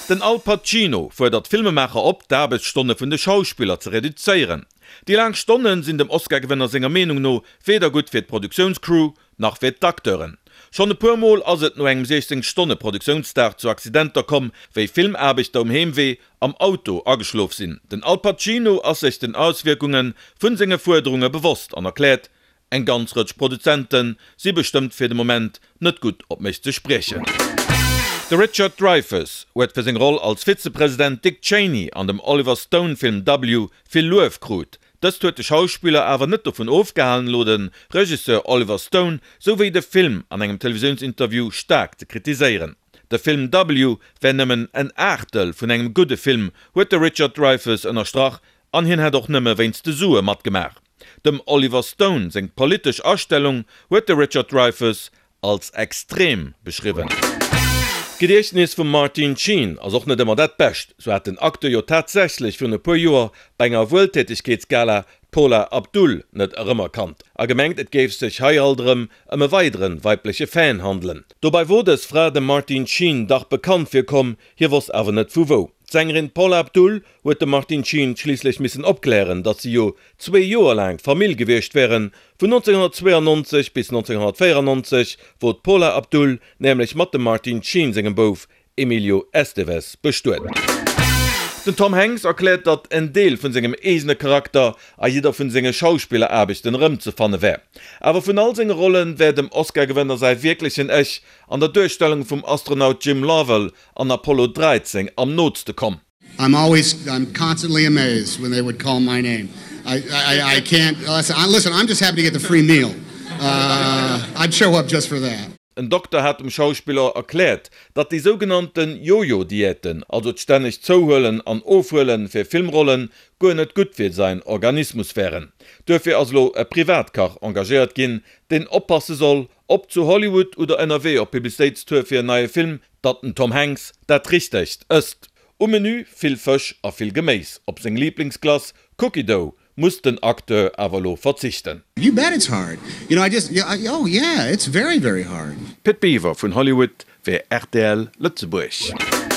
Den Al Pacino fuerdert d'Filmemaacher op, d'Aarbechtsstonne vun de Schauspiller ze reduzéieren. Déi laang Stonne sinn dem Oscar-Gewënner senger Meenung no weder gutt fir d'Produktiounscrew, nach fir d'Acteuren. Schonn e puer Mol ass et no engem 16 Stonne Produktiounsdag zu Accidenter komm, wéi Filmaarbechter um Heemwee am Auto ageschlof sinn. Den Al Pacino ass sech den Auswierkunge vun senge Fuerderunge bewosst an erkläert, Eng ganz Rëtsch Produzente si bestëmmt fir de Moment net gutt op mech ze spriechen. De Richard Dreyfuss huet fir seng Roll als Vizepresident Dick Cheney an dem Oliver Stone Film W vill Luef krut. Dëst huet de Schauspiller awer net dovun ofgehalen elo de Regisseur Oliver Stone souwéi de Film an engem Televisiounsinterview staark ze kritiséieren. De Film W wär nëmmen en Aachtel vun engem gudde Film, huet de Richard Dreyfuss ënnerstrach an hien hätt och nëmme wéinst de Sue matgemaach. Dem Oliver Stone seng politesch Astellung huet de Richard Dreyfuss als extrem beschriwwen. D'Gediechtnes vum Martin Sheen ass och net ëmmer dat bescht. Sou hat den Acteur jo tatsächlech virun e puer Joer bei enger Wueltätegkeetsgala d'Paula Abdul net erëmerkannt a gemengt et géif sech hei alt erëm ëm e weidere weibleche Fan handelen. Dobei wor dës Fra dem Martin Sheen dach bekannt virkomm, hie wosst awer net vu wou. D'Sängerin Paula Abdul huet de Martin Sheen schliisslech missen opklären, datt si jo zwee Joer laang Famill gewiescht wären, vun 1992 bis 1994 wor d'Paula Abdul nämlech mat dem Martin Sheen sengem Bouf Emilio Estevez bestuet. Den Tom Hanks erkläert, datt en Deel vun sengem eegene Charakter a jidder vun senge Schauspilleraarbechten erëmzefanne wär. Awer vun all senge Rolle wär dem Oscar-Gewënner säi wierklechen Ech an der Duerstellung vum Astronaut Jim Lovell an Apollo 13 am nootste komm. I'm always I'm constantly amazed when they would call my name. I I I can't listen, I'm just happy to get the free meal. I'd show up just for that. En Dokter hat dem Schauspiller erkläert, datt déi sougenannte Jojo-Diäten, also d'stännegt Zouhuelen an Ofhuele fir Filmrollen, guer net gutt fir säin Organismus wären. Duerfir ass elo e Privatkach engagéiert ginn, deen oppasse soll, ob zu Hollywood oder ënnerwee op Publicitéitstour fir en neie Film, Datt den Tom Hanks dat Richtegt ësst. Um Menü vill Fësch a vill Geméis. Op seng Liiblingsglace Cookie Dough muss den Acteur awer elo verzichten. You bet it's hard. You know, I just, oh yeah, it's very, very hard. Pit Biwer vun Hollywood fir rtl Lëtzebuerg.